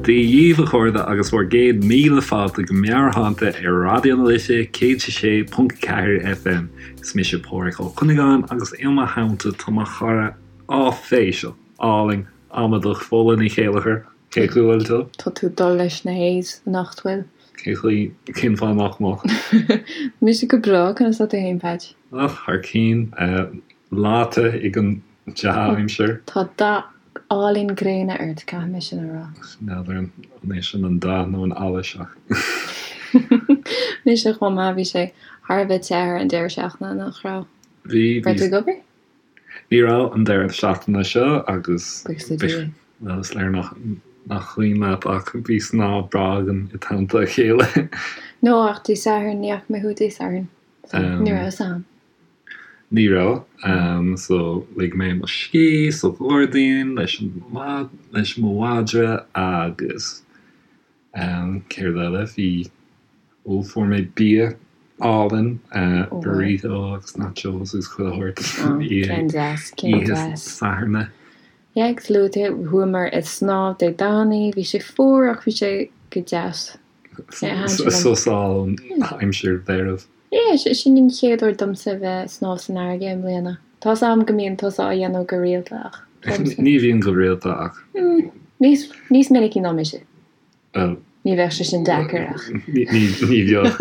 Dia dhíbh a chairde agus bhur gcéad míle fáilte go Meabhairshláinte ar Raidió na Life 106.4 FM. Is mise Pádhraic Ó Cuinneagáin agus i mo theannta tá mo chara áiféiseach, álainn, amadach Fódhla Ní Chéilleachair. Cén chaoi a bhfuil tú? Tá tú ag dul leis na A's anocht, bhfuil? Cén chaoi, cén fáth nach mbeadh? Mise go breá, conas tá tú fhéin, Peaits? Ach thar cinn, leáite ag an dea-aimsir. Tá dath álainn gréine ort, caithfidh mé sin a rá. N'fheadar an é sin an dath nó an allas ach. Mise chomh maith, bhí sé thar a bheith te ar an deireadh seachtaine, nach raibh? Bhí, bhí. Raibh tú ag obair? Ní raibh an deireadh seachtaine seo agus. Buíochas le Dia. Bhuel, is léir nach cuimhin leat ach bhí snámh breá againn i dteannta a chéile. No, ach Dé Sathairn, ní fhaca mé thú Dé Sathairn. So, ní raibh fhios a'm. Ní raibh. So, lig mé mo scíth sa ghairdín leis an, leis mo mhadra agus céard eile, bhí, ó, fuair mé bia álainn, burrito agus nachos agus chuile shórt oíche Sathairn. Yeah, agus luaigh tú, chuamar ag snámh Dé Domhnaigh, bhí sé fuar ach bhí sé go deas. Sos ón aimsir mheirbh. Yeah, sin an chéad uair domsa a bheith ag snámh san fharraige i mbliana. Tá's a'm go mbíonn tusa á dhéanamh go rialta ach domsa. Ní bhíonn go rialta ach. Níos, níos minicí ná mise. Bhuel. Ní bheadh sé sin deacair ach. Ní, ní bheadh.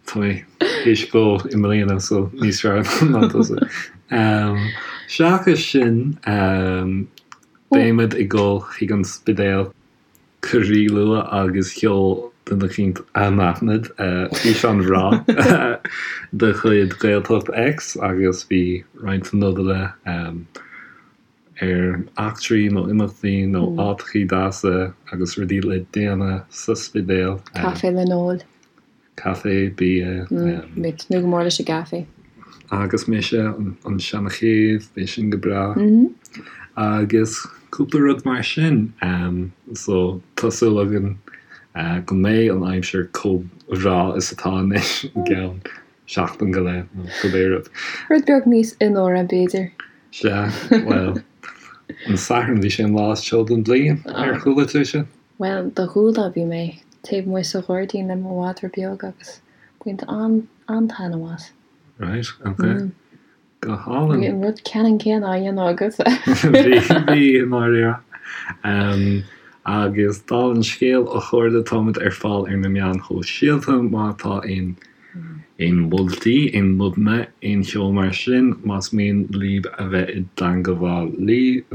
Tá mé théis dul i mbliana so níos fearr ná tusa. Seachas sin, beimid ag dul chuig an Spidéal. Go ríluath agus sheol duine eicínt anaithnid físeán bhreá de chuid Gaeltacht X agus bhí roinnt nodanna ar eachtraí nó imeachtaí nó áiteachaí deasa agus rudaí le déanamh sa Spidéal. Caife le n-ól. Caife, bia. Mé ag tnúth go mór leis an gcaife. Agus mise, an seana-chéibh, beidh sin go breá. Agus cúpla rud mar sin. So, tá súil againn go mbeidh an aimsir chomh bhreá is atá anois i gceann seachtain go leith nó cibé rud. Rud beag níos fionnuaire, b'fhéidir. Sea, bhuel, an Satharn, bhí sé an lá is teo den bhliain, ar chuala tú sin? Bhuel, do chuala, bhí mé taobh amuigh sa ghairdín le mo mhadra beag agus baint an-taitneamh as. Right, ok. Go hálainn. Bhí an rud ceannann céanna á dhéanamh agatsa. Bhí, bhí, i ndáiríre. Agus dála an scéil, a chairde, táimid ar fáil ar na meáin shóisialta má tá aon Aon mholtaí, aon nodanna, aon cheo mar sin, más mian libh a bheith i dteangabháil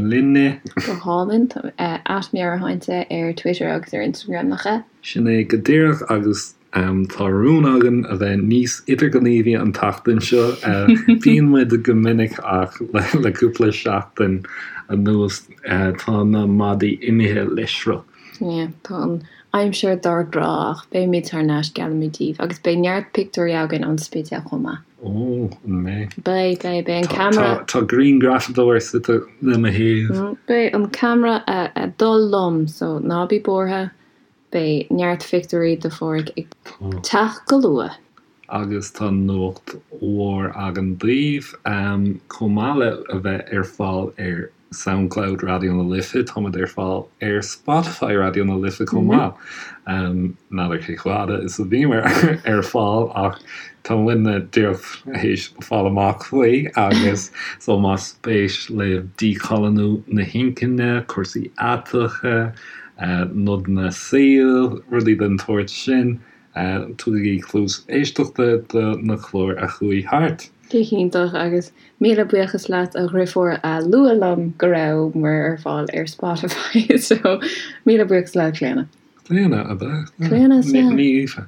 linne. Go hálainn. At Meabhairshláinte ar Twitter agus ar Instagram, nach ea? Sin é go díreach agus tá rún againn a bheith níos idirghníomhaí an tseachtain seo. Bíonn muid go minic ach le cúpla seachtain anuas tá na maidí imithe le sruth. Yeah, tá an aimsir dár gcrá ach beimid thar n-ais, geallaimid daoibh, agus beidh neart pictiúirí againn ón Spidéal chomh maith. Ó, an mbeidh? Beidh, beidh, beidh an ceamara. Tá grianghrafadóir suite le mo thaobh. Beidh an ceamara ag dul liom, so ná bí buartha, beidh neart phictiúirí de Pháraic ag teacht go luath. Agus tá nuacht mhór againn daoibh, chomh maith le a bheith ar fáil ar Soundcloud Raidió na Life, táimid ar fáil ar Spotify Raidió na Life chomh maith. N'fheadar cé chomh fada is a bhíomar ar fáil ach tá muidne díreach théis fáil amach faoi agus so más spéis libh díchoilíniú na hinchinne, cúrsaí aiteacha, nodanna saoil, rudaí den tsórt sin, Tugaigí cluas éisteachta do na cláir a chuaigh thart. Go hiontach, agus míle buíochas leat a dhriofúr a luaigh liom go rabhamar ar fáil ar Spotify, so míle buíochas leat Clíona. Clíona, ab ea? Clíona, sea. Ní Aoife.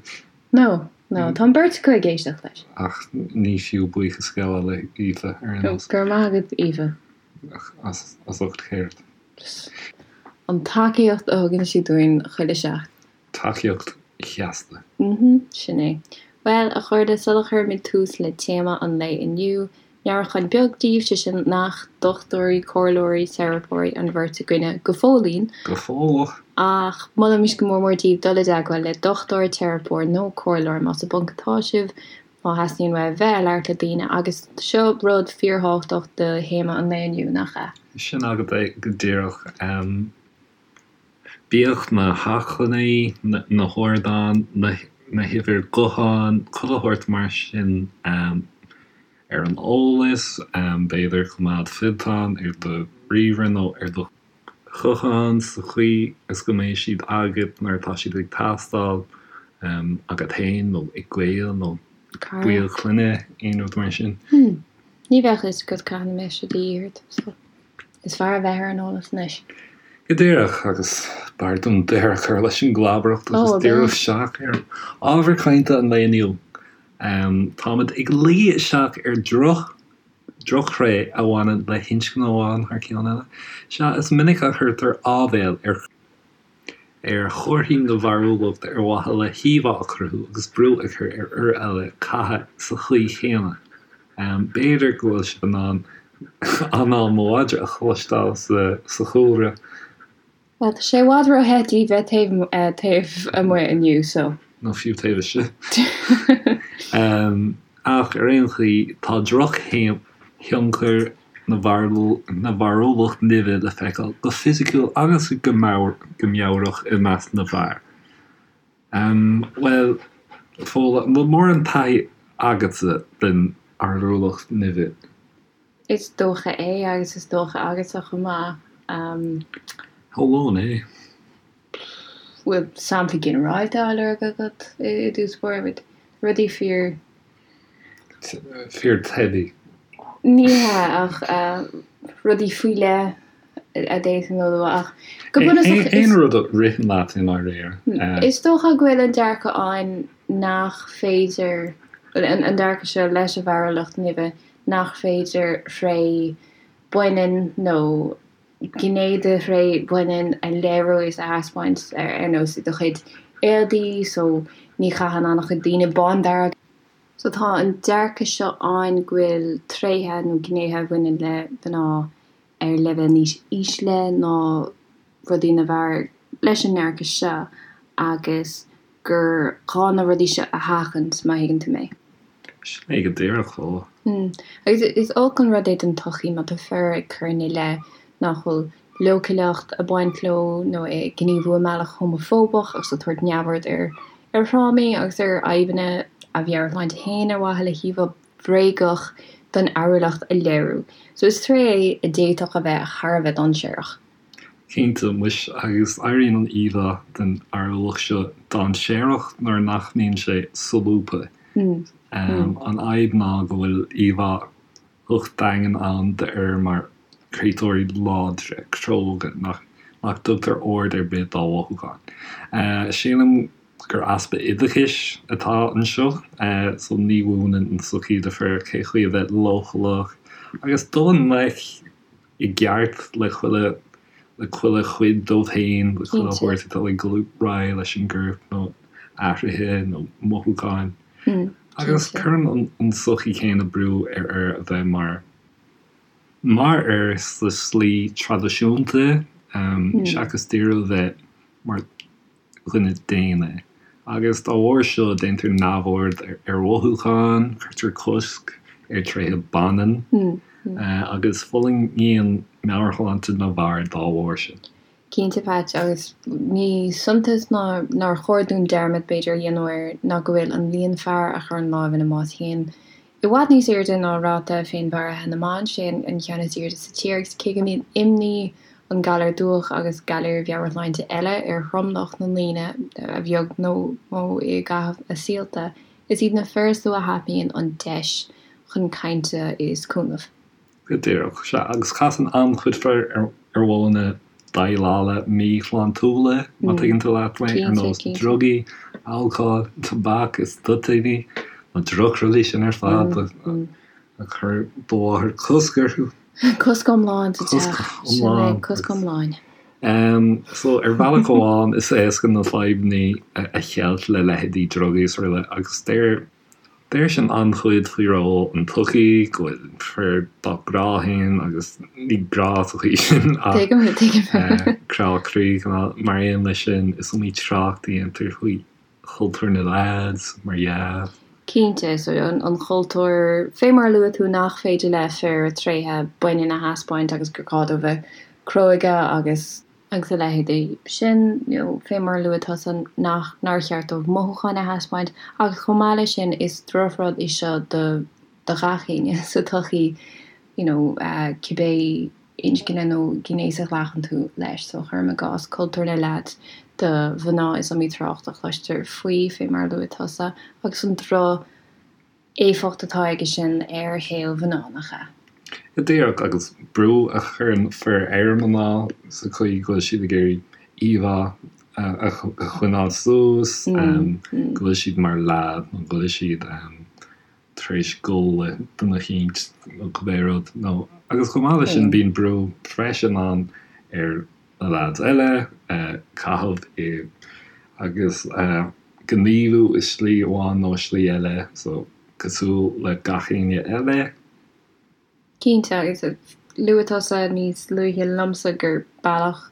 No, no, tá an beirt acu ag éisteacht leis. Ach ní fiú buíochas a ghabháil le hAoife ar aon nós. Go raibh maith agat Aoife. As ucht céard? An tacaíocht a thugann sí dúinn chuile sheachtain. Tacaíocht sheasta. Mm-hmm, sin é. Bhuel, a chairde, sula chuirimid tús le téama an lae inniu, meabhrúchán beag daoibh, sé sin nach dochtúirí, comhairleoirí, teiripeoirí an bheirt againne go fóillín. Go fóilleach! Ach molaimid go mór mór daoibh dul i dteagmháil le dochtúir, teiripeoir nó comhairleoir más i bponc atá sibh, má theastaíonn uaibh bheith ag labhairt le daoine, agus seo rud fíorthábhachtach do théama an lae inniu, nach ea? Sin agat é go díreach. Bíodh na hacmhainní, na hardáin, na huimhir gutháin, chuile shórt mar sin ar an eolas, b'fhéidir coimeád fillteán ar do ríomhaire nó ar do ghuthán sa chaoi is go mbeidh siad agat nuair atá siad ag teastáil, agat féin nó ag gaol nó baill clainne, aon rud mar sin. Ní bheadh fhios agat cathain a mbeidh sé de dhíth ort, so is fearr a bheith ar an eolas anois. Go díreach, agus b'fhearr dúinn deireadh a chur leis an gclabaireacht agus díriú isteach ar ábhar cainte an lae inniu. Táimid ag luí isteach ar dhroch, drochthréith a bhaineann le hinscne amháin thar ceann eile. Sea, is minic a chuirtear áibhéil ar. ar chomharthaí na bhfearúlacht ar mhaithe le híomhá a chruthú agus brú a chur ar fhir eile caitheamh sa chaoi chéanna. B'fhéidir go bhfuil sibh in ann anáil mo mhadra a chloisteáil sa chúlra. Bhuel, tá sé i bhfad ró-the di bheith taobh amuigh inniu, so. Nó fiú taobh istigh. Ach ar aon chaoi, tá drochthionchar na bhfearúlacht nimhe le feiceáil go fisiciúil agus go meabhrach i measc na bhfear. Bhuel, Fódhla, an bhfuil mórán taithí agatsa den fhearúlacht nimhe? Is dócha é, agus is dócha agatsa chomh maith. Shamhlóinn é. Bhfuil sampla ginearálta á lorg agat i dtús báire? Rudaí fíor. Fíor teibí. Ní hea, ach rudaí faoi leith a d'fhéadfainn a lua ach go bunúsach is. Aon rud a ritheann leat i ndáiríre. Is dócha go bhfuil an dearcadh ann nach féidir, an dearcadh seo leis an bhfearúlacht nimhe, nach féidir thréith baineann nó gné de thréith bhaineann a léiriú is a thaispeáint ar nós i do chuid éadaí so ní chaitheann an-chuid daoine bándearg. So tá an dearcadh seo ann go bhfuil tréithe nó gnéithe a bhaineann le mná ar leibhéal níos ísle ná rudaí na bhfear leis an ndearcadh seo agus gur gá na rudaí seo a sheachaint, má thuigeann tú mé. Sin é go díreach, Fódhla. Agus is olc an rud é don tsochaí má tá fir ag cur ina leith nach bhfuil leochaileacht ag baint leo nó ag gníomhú i mbealach homafóbach agus ag tabhairt neamhaird ar ar thrámaí agus ar fhadhbanna a mheabhairshláinte féin ar mhaithe le híomhá bhréagach den fhearúlacht a léiriú. So is tréith é a d'fhéadfadh a bheith thar a bheith dainséarach. Cinnte, muis, agus éiríonn an íomhá den fhearúlacht seo dainséarach nuair nach mbíonn sé solúbtha. An fhadhb ná go bhfuil íomhá dhocht daingean ann d'fhir mar chréatúirí láidre, cróga, nach dtugtar aird ar bith dá mhothúcháin. Sílim gur easpa oideachais atá anseo, so ní mhúineann an tsochaí do fir cé chaoi a bheith leochaileach agus dul i ngleic i gceart le chuile le chuile chuid dóibh féin, le chuile shórt atá ag dul ar aghaidh leis an gcorp nó athruithe nó mothúcháin. Agus cuireann an tsochaí chéanna brú ar fhir a bheith mar mar fhir sa slí traidisiúnta seachas díriú a bheith mar dhuine daonna, agus dá bharr seo déantar neamhaird ar mhothúcháin, cuirtear cosc ar thréithe baineann, agus fulaingíonn meabhairshláinte na bhfear dá bharr sin. Cinnte, Patch, agus ní suntas ná nár chóir dúinn dearmad, b'fhéidir, a dhéanamh air ná go bhfuil an líon fear a chuireann lámh ina mbás féin i bhfad níos airde ná ráta féinmharaithe na mban, sé an ceann is airde sa tír, agus cé go mbíonn imní an galar dubhach agus galair mheabhairshláinte eile ar thromlach na ndaoine, a bheag nó mó i gcaitheamh a saolta, is iad na fir is lú a thapaíonn an deis chun cainte is cúnamh. Go díreach, sea, agus casann an-chuid fir ar mhodhanna déileála míshláintiúla, má tuigeann tú leat mé, ar nós drugaí, alcól, tobac is toitíní, na drochrudaí sin ar fad a chuir do mháthair cosc orthu. Cosc iomlán sa teach. Sin é, cosc iomlán. So, ar bhealach amháin, is éasca na fadhbanna a cheilt le leithéidí drugaí is araile, agus deir Deir sin an-chuid faoi ról an tsochaí, go bhfuil fir dá gcrá féin agus ní grá sa chaoi sin ach crá croí, mar aon leis sin, is iomaí trácht a dhéantar faoi chultúr na leaids, mar dhea. Cinnte, so an chultúr, fé mar a luaigh tú, nach féidir le fir tréithe baineann a thaispeáint agus gur gá dóibh bheith cróga agus. Agus a leithéidí sin, nó fé mar a luaigh tusa, nach, nár cheart dóibh mothúcháin a thaispeáint, agus chomh maith leis sin, is drochrud é seo do, do ghach éinne sa tsochaí, you know, cibé inscne nó gnéas a ghlacann tú leis. So, cuirim i gcás, cultúr na leaids do mhná, is iomaí trácht a chloistear faoi, fé mar a luaigh tusa, agus an droch éifeacht atá aige sin ar shaol mhná, nach ea? Go díreach, agus brú a chuireann fir ar mhná sa chaoi go bhfuil siad ag iarraidh íomhá a choinneáil suas, go bhfuil siad mar leaid nó go bhfuil siad tar éis gol le duine eicínt nó cibé rud. Nó, agus chomh maith leis sin bíonn brú freisin ann ar na leaids eile caitheamh i agus gníomhú i slí amháin nó slí eile, so cosúil le gach éinne eile. Cinnte, agus luaigh tusa níos luaithe liomsa gur bealach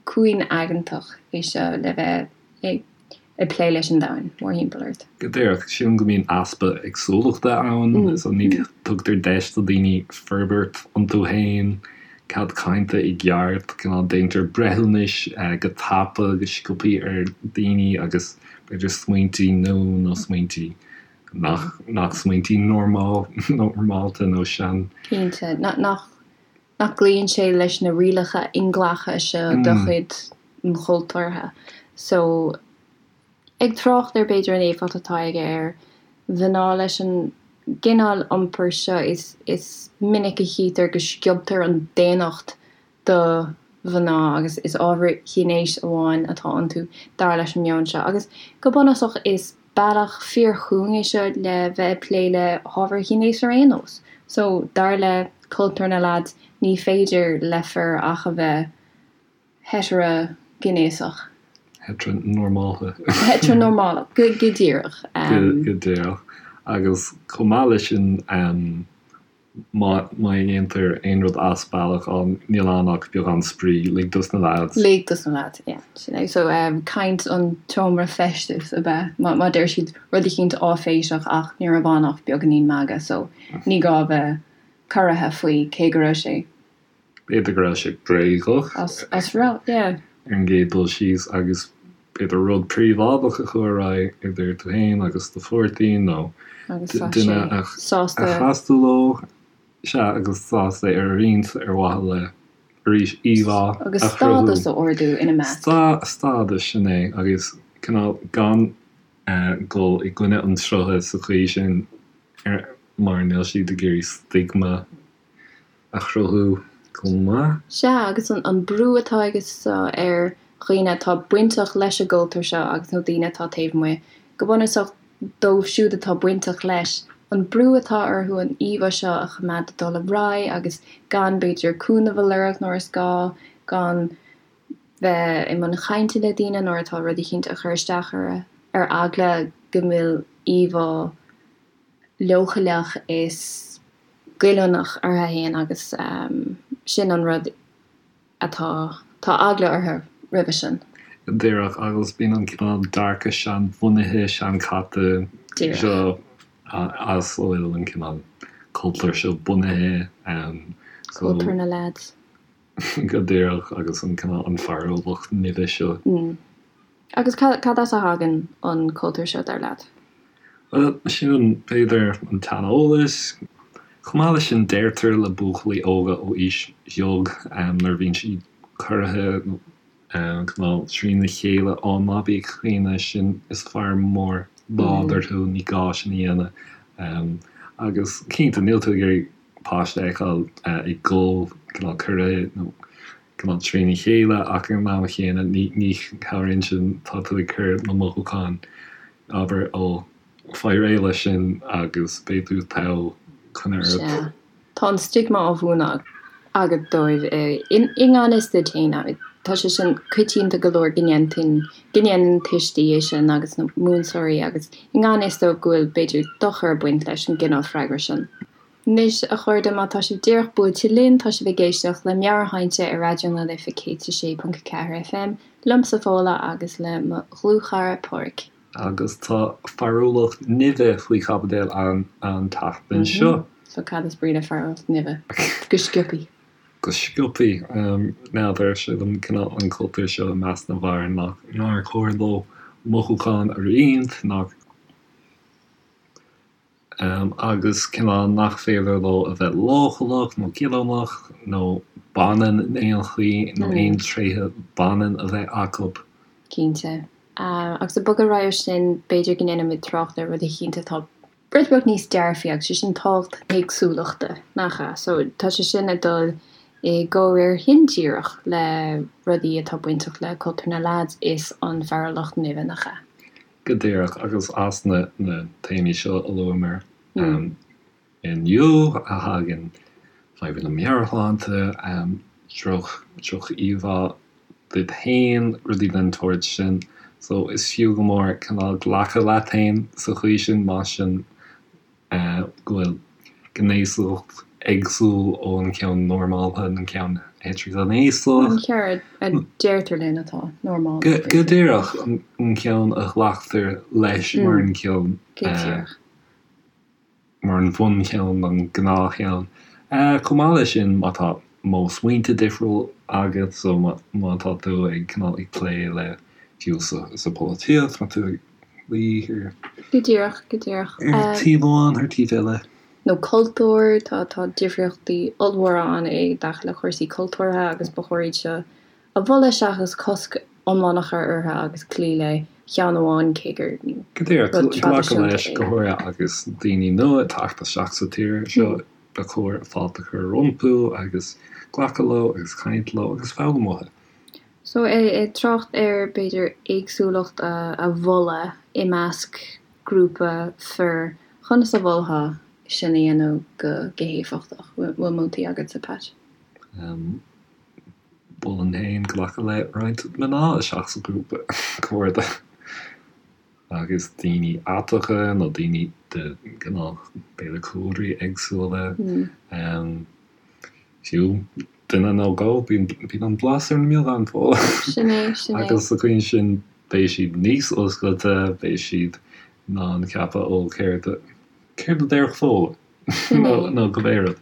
cúngaigeantach é seo le bheith ag ag plé leis an domhan mórthimpeall ort. Go díreach, sílim go mbíonn easpa éagsúlachta ann, so ní tugtar deis do daoine forbairt iontu féin, cead cainte i gceart, cineál déantar breithiúnais go tapa, go sciobthaí ar daoine agus b'fhéidir smaointí nua nó smaointí nach nach smaointí normál normálta nó sean. Cinnte, nach nach gcloíonn sé leis na rialacha inghlactha seo de chuid an chultúrtha. So, ag trácht ar b'fhéidir an éifeacht atá aige ar mhná leis an gcineál iompair seo, is is minic a chítear go sciobtar an daonnacht do mhná agus is ábhair ghnéis amháin atá iontu, dar leis an meon seo. Agus go bunúsach is bealach fíorchúng é seo le bheith ag plé le hábhair ghnéis ar aon nós. So, dar le cultúr na leaids, ní féidir le fir ach a bheith heitreaghnéasach. Heitreanormálta. Heitreanormálach, go díreach. Go díreach. Agus chomh maith leis sin, Má dhéantar aon rud as bealach, á, níl ann ach beagán spraoi, lig dos na leaids. Lig dos na leaids, yeah, sin é. So, caint an tseomra feistis ab ea, má deir siad rud eicínt áiféiseach ach ní raibh ann ach beagáinín magaidh, so ní gá a bheith corraithe faoi cé go raibh sé. B'fhéidir go raibh sé bréagach. As raibh, yeah. Ar an gcéad dul síos agus b'fhéidir rud príobháideach a chuaigh ar aghaidh idir tú féin agus do pháirtí nó duine a chas tú leo. Sea, agus sásta é a roinnt ar mhaithe le, arís, íomhá a chruthú. Agus stádas a ardú ina measc. Stádas, sin é, agus cineál gan dul i gcoinne an tsrutha sa chaoi sin mar níl siad ag iarraidh stigma a chruthú chomh maith. Sea, agus an brú atá aige seo ar dhaoine atá bainteach leis an gcultúr seo agus nó daoine atá taobh amuigh, go bunúsach dóibh siúd atá bainteach leis, an brú atá orthu an íomhá seo a choimeád ag dul ar aghaidh agus gan, b'fhéidir, cúnamh a lorg nuair is gá, gan bheith i mbun chainte le daoine nuair atá rud eicínt ag cur isteach orthu, ar eagla go bhfuil íomhá leochaileach is goilliúnach orthu fhéin agus sin an rud atá, tá eagla orthu roimhe sin. Díreach, agus bíonn an cineál dearcadh seanbhunaithe, seanchaite seo as a bhfuil an cineál cultúr seo bunaithe. Cultúr na leaids. Go díreach, agus an cineál, an fearúlacht nimhe seo. Agus cad as a thagann an cultúr seo, dar leat? Bhuel, sin, b'fhéidir, an tseaneolas. Chomh maith leis sin, deirtear le buachaillí óga ó aois bheag, nuair a bhíonn siad corraithe nó cineál trína chéile, á, ná bí ag caoineadh, sin, is fear mór láidir thú, ní gá sin a dhéanamh. Agus cinnte, níl tú ag iarraidh páiste a fheiceáil ag gol, cineál corraithe nó cineál trína chéile ach ag an am chéanna ní chabhraíonn sin, tá tú ag cur na mothúcháin, abair, ó, faigh réidh leis sin agus beidh tú togha, coinnigh ort. Sea. Tá an stigma á mhúineadh agat dóibh i ngan fhios duit féin. Tá sé sin coitianta go leor go ndéanann, go ndéanann tuistí é sin agus na múinteoirí agus i ngan fhios dóibh go bhfuil b'fhéidir dochar ag baint leis an gcineál freagra sin. Anois, a chairde, má tá sibh díreach buailte linn, tá sibh ag éisteacht le Meabhairshláinte ar Raidió na Life 106.4 FM, liomsa Fódhla agus le mo dhlúthchara Páraic. Agus tá fearúlacht nimhe faoi chaibidil an tseachtain seo. So cad is brí le fearúlacht nimhe? Go sciobthaí. Go sciobthaí, n'fheadar, sílim, cineál an cultúr seo i measc na bhfear nach nár chóir leo mothúcháin a roinnt, nach, agus cineál nach féidir leo a bheith leochaileach nó goilliúnach nó baineann in aon chaoi nó aon tréithe baineann a bheith acu. Cinnte. Agus ag bogadh ar aghaidh ó sin, b'fhéidir go ndéanfaimid trácht ar rud eicínt atá rud beag níos dearfaí agus sé sin tábhacht na héagsúlachta, nach ea? So tá sé sin ag dul i gcomhréir indíreach le rudaí atá bainteach le cultúr na leaids is an fearúlacht nimhe, nach ea? Go díreach, agus as na téamaí seo a luamar inniu a thagann fadhbanna meabhairshláinte, droch-íomhá duit féin, rudaí den tsórt sin. So is fiú go mór cineál glacadh leat féin sa chaoi sin, más sin go bhfuil gnéasacht éagsúil ón cheann normálta, an ceann heitrighnéasach. An ceann a deirtear linn atá normálta. Go díreach, an ceann a ghlactar leis mar an ceann. Go díreach. Mar an bhuncheann, an gnáthcheann. Chomh maith leis sin, má tá modh smaointe difriúil agat, so má tá tú ag cineál ag plé le fiú sa pholaitíocht, má tá tú ag luí ar. Go díreach, go díreach. Ar taobh amháin, ar taobh eile. Nó cultúr, tá, tá difríochtaí ollmhóra ann i dtaca le cúrsaí cultúrtha agus ba chóir iad seo a mholadh seachas cosc iomlán a chur orthu agus cloí le ceann amháin cé gur Go díreach, rud glacadh traidisiúnta leis, é. go háirithe agus daoine nua ag teacht isteach sa tír seo, ba chóir fáilte a chur rompu agus glacadh leo agus caint leo agus foghlaim uathu. So, ag trácht ar, b'fhéidir, éagsúlacht a mholadh i measc grúpa fir, conas a mholfá sin a dhéanamh go héifeachtach? Bhfuil moltaí agatsa, Pat? Mholfainn féin glacadh le roinnt mná isteach sa ghrúpa cairde agus daoine aiteacha nó daoine de cineál, b'fhéidir, cúlraí éagsúla. Fiú duine nó dhó, bíonn an blas ar an mbeagán, Fódhla. Sin é, sin é. Agus sa chaoi sin, beidh siad níos oscailte, beidh siad in ann ceapadh, ó, céard a, céard a déarfadh Fódhla? Sin é. Nó cibé rud.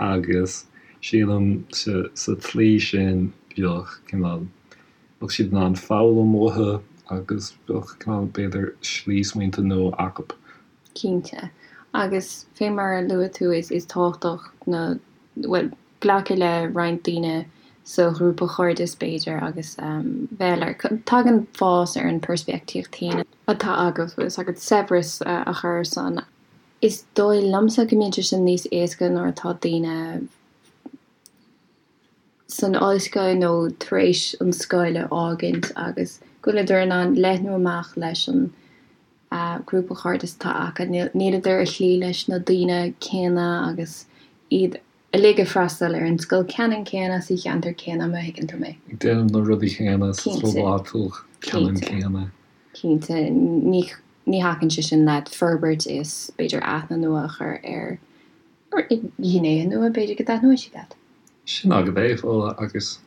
Agus sílim sa, sa tslí sin, bheadh cineál, bheadh siad in ann foghlaim uathu agus bheadh cineál, b'fhéidir, slí smaointe nua acu. Cinnte. Agus fé mar a luaigh tú, is tábhachtach na, bhuel, glacadh le roinnt daoine sa ghrúpa chairdis, b'fhéidir, agus bheith le, tagann fás ar an peirspictíocht féin atá agat, bhfuil fhios agat, saibhreas a chur ar san. Is dóigh liomsa go mbíonn sé sin níos éasca nuair atá daoine san ollscoil nó tar éis an scoil a fhágaint agus go bhfuileadar in ann leathnú amach leis an grúpa chairdis atá acu. Níleadar ag cloí leis na daoine céanna agus iad uilig ag freastal ar an scoil ceannann céanna sa cheantar céanna, má thuigeann tú mé. Ag déanamh na rudaí céanna sa chlub áitiúil ceannann céanna. Cinnte. Ní ní thacaíonn sé sin leat forbairt is b'fhéidir aithne nua a chur ar ghnéithe nua b'fhéidir go dtaitneoidh siad leat. Sin agat é, Fódhla, agus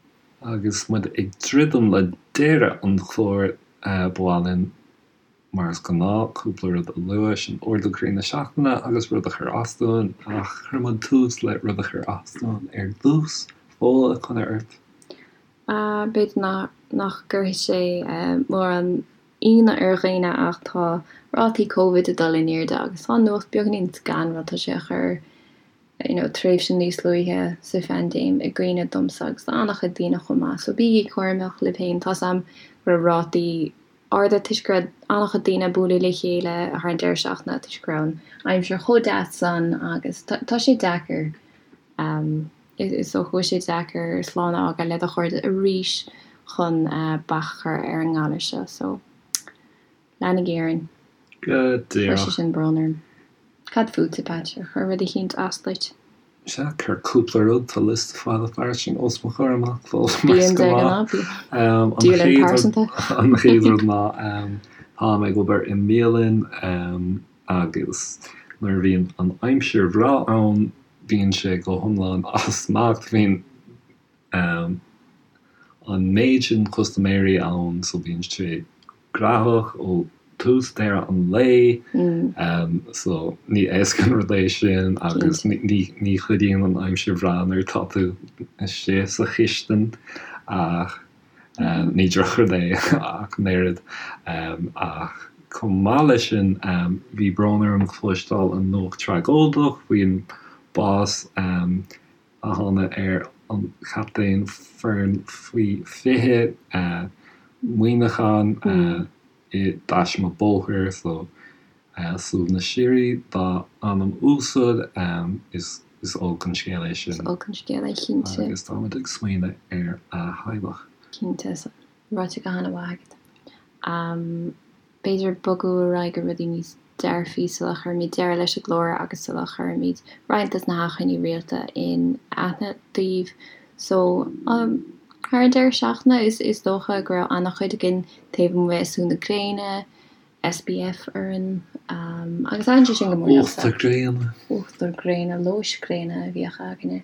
agus muid ag druidim le deireadh an chláir, ba mhaith linn Mar is gnáth, cúpla rud a lua, sin ardú croí na seachtaine agus rud a chuir as dúinn, ach cuirfidh muid tús le rud a chuir as dúinn ar dtús. Fódhla, coinne ort. B'fhéidir nach gcuirfidh sé mórán ionadh ar dhaoine ach tá rátaí Covid ag dul in airde agus tá an nuacht beagáinín scanrúil, tá sé ag cur you know tréimhse níos luaithe sa phaindéim i gcuimhne domsa agus d'an-chuid daoine chomh maith. So bígí cúramach libh féin, tá's a'm go raibh rátaí arda toisc go raibh an-chuid daoine ag bualadh le chéile thar an deireadh seachtaine toisc go raibh an aimsir chomh deas san agus tá sé deacair, is dócha go bhfuil sé deacair slán a fhágáil le do chairde arís chun bac a chur ar an ngalar seo so leanaigí orainn. Go díreach. Chuir sé sin brón orm. Cad fútsa, Pat? Ar chuir rud eicínt as duit? Sea, chuir cúpla rud, tá liosta fada fairsing os mo chomhair amach, fós, mar is gnáth. Dialann pearsanta. An chéad rud ná, táim ag obair i mbialann agus nuair a bhíonn an aimsir bhreá ann, bíonn sé go hiomlán as smacht, bíonn an méid sin custaiméirí ann so bíonn sé graitheach ó. tús deireadh an lae so ní éasca an rud é sin agus ní chuidíonn an aimsir bhreá nuair atá tú istigh sa chistin ach ní drochrud é ach an oiread. Ach chomh maith leis sin bhí brón orm cloisteáil an nuacht tragóideach faoin bás a tháinig ar an chaptaen foireann faoi 20 Muineachán i dtaisme bóthair so suaimhneas síoraí dá anam uasal. Is olc an scéal é sin. Is olc an scéal é cinnte. Agus táimid ag smaoineamh ar a theaghlach. Cinnte. Ráite go han-mhaith agat. B'fhéidir bogadh ar aghaidh go rudaí níos dearfaí sula chuirimid deireadh leis an gclár agus sula chuirimid roinnt des na hachainí rialta in aithne daoibh. So, thar an deireadh seachtaine is is dócha go raibh an-chuid againn taobh amuigh ag sú na gréine, SPF orainn, agus thaitin sé sin go mór liomsa. Uachtar gréine. Uachtar gréine, lóis gréine a bhíodh againne.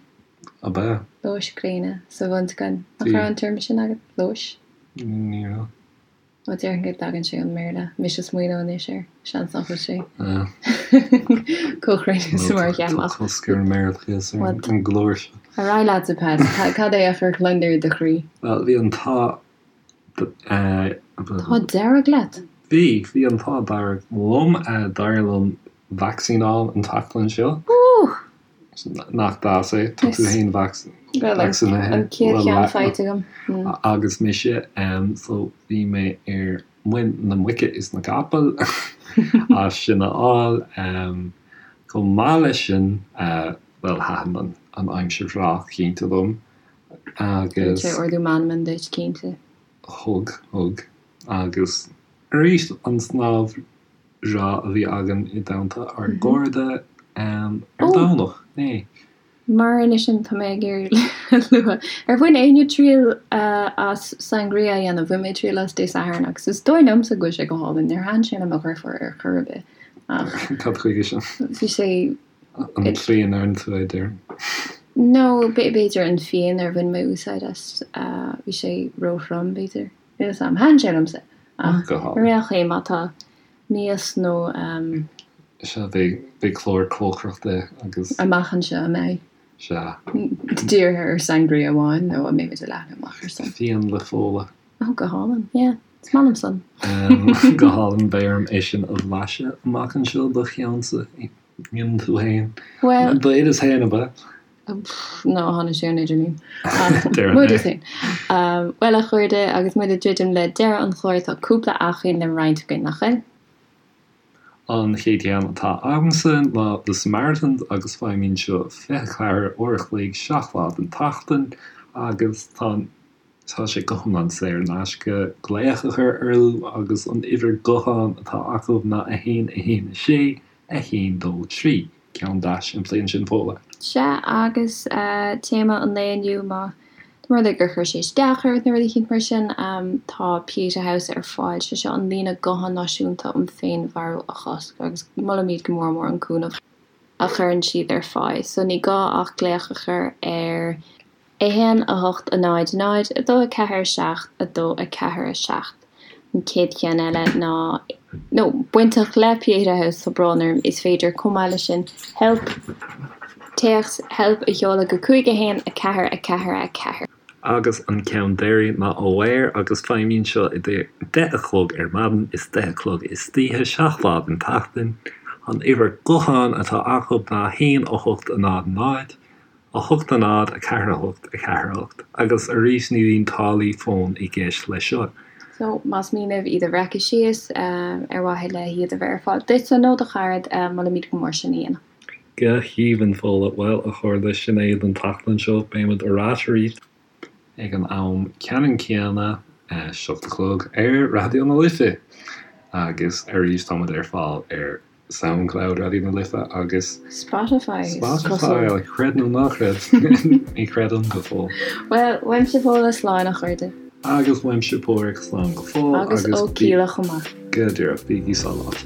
Ab ea? Lóis gréine sa bhunscoil. Nach raibh an téarma sin agat? Lóis? Ní raibh. Ó déarfainn go dtagann sé ón mBéarla. Mise ag smaoineamh anois air. Seans nach bhfuil sé chomh cruinn is mar a cheapfá. Tá cosc ar an mBéarlachas ar an gclár seo. Ar aghaidh leatsa, Pat. Cad é a chuir gliondar i do chroí? Bhuel, bhí an t-ádh. T-ádh dearg leat? Bhí. Bhí an t-ádh dearg liom. D'éirigh liom vacsaín a fháil an tseachtain seo. Nach deas é? Tá tú féin vacsaínithe. An chéad cheann faighte agam. Agus mise, so bhí mé ar muin na muice is na gcapall as sin a fháil. Chomh maith leis sin, bhuel, thaitin an aimsir bhreá cinnte liom agus. Thug sé ardú meanman duit, cinnte. Thug, thug. Agus arís an snámh breá a bhí againn i dteannta ár gcairde ar Domhnach, inné. Mar anois sin tá mé ag iarraidh a lua, ar bhain éinne triail as sangria a dhéanamh? Bhain mé triail as Dé Sathairn agus is dóigh liomsa go bhfuil sé go hálainn. Níor thaitin sé le mo dheirfiúr ar chor ar bith ach. Cad chuige sin? Bhí sé. An tslí a ndeireann tú é, déarfainn. No, b'fhéidir an fíon ar bhain mé úsáid as, bhí sé róthrom b'fhéidir. Níl 'fhios a'm. Thaitin sé liomsa. Ach ar aon chaoi má tá mias nó. Sea, beidh clár cócaireachta agus. Amach anseo, an mbeidh? Sea. Dírithe ar sangria amháin nó an mbeimid ag leathnú amach ar san? Fíon le Fódhla. Ó, go hálainn. Yeah. Is maith liom san. Go hálainn. Beidh orm é sin a bhlaiseadh amach anseo do cheannsa. Dhéanann tú féin. Bhuel. D'oideas féin, ab ea? No, tháinig sé ón idirlíon. Ach m'oideas féin. Bhuel, a chairde, agus muid ag druidim le deireadh an chláir, tá cúpla acmhainn le roinnt againn, nach bhfuil? An chéad cheann atá agamsa ná The Samaritans agus feidhmíonn seo 24 uair a chloig, 7 lá den tseachtain agus tá an Tá sé go hiomlán saor in aisce glaoch a chur orthu agus an uimhir gutháin atá acu ná 1 1 6 1 2 3. Ceann deas simplí ansin Fódhla. Sea, agus téama an lae inniu, má tá rud é gur chuir sé isteach ort nó rud eicínt mar sin, tá Pieta House ar fáil, sé seo an líne gutháin náisiúnta um féinmharú a chosc agus molaimid go mór mór an cúnamh a chuireann siad ar fáil. So ní gá ach glaoch a chur ar. 1, 8, 0, 0, 2, 4, 7, 2, 4, 7. An chéad cheann eile ná, nó bainteach le Pieta House, tá brón orm, is féidir chomh maith leis sin help, téacs help a sheoladh go 5, 1, 4, 4, 4. Agus an ceann deiridh ná Aware agus feidhmíonn seo idir deich a chlog ar maidin is deich a chlog istoíche, 7 lá den tseachtain. An uimhir gutháin atá acu ná 1, 8, 0, 0. 8 0 4 8 4 8 Agus arís ní bhíonn táillí fóin i gceist leis seo. So, más mian libh iad a bhreacadh síos, ar mhaithe le hiad a bheith ar fáil duitse nó do charad, molaimid go mór sin a dhéanamh. Go haoibhinn, Fódhla. Bhuel, a chairde, sin é don tseachtain seo. Beimid ar ais arís ag an am ceannann céanna, 7 a chlog, ar Raidió na Life! Agus arís, táimid ar fáil ar. Soundcloud, Raidió na Life agus. Spotify, is cosúil. Spotify, creid nó ná creid, ní chreidim go fóill. Bhuel, uaimse Fódhla slán a chairde. Agus uaimse Páraic slán go fóill. Agus ó Kíla chomh maith. Go díreach, bígí sábháilte.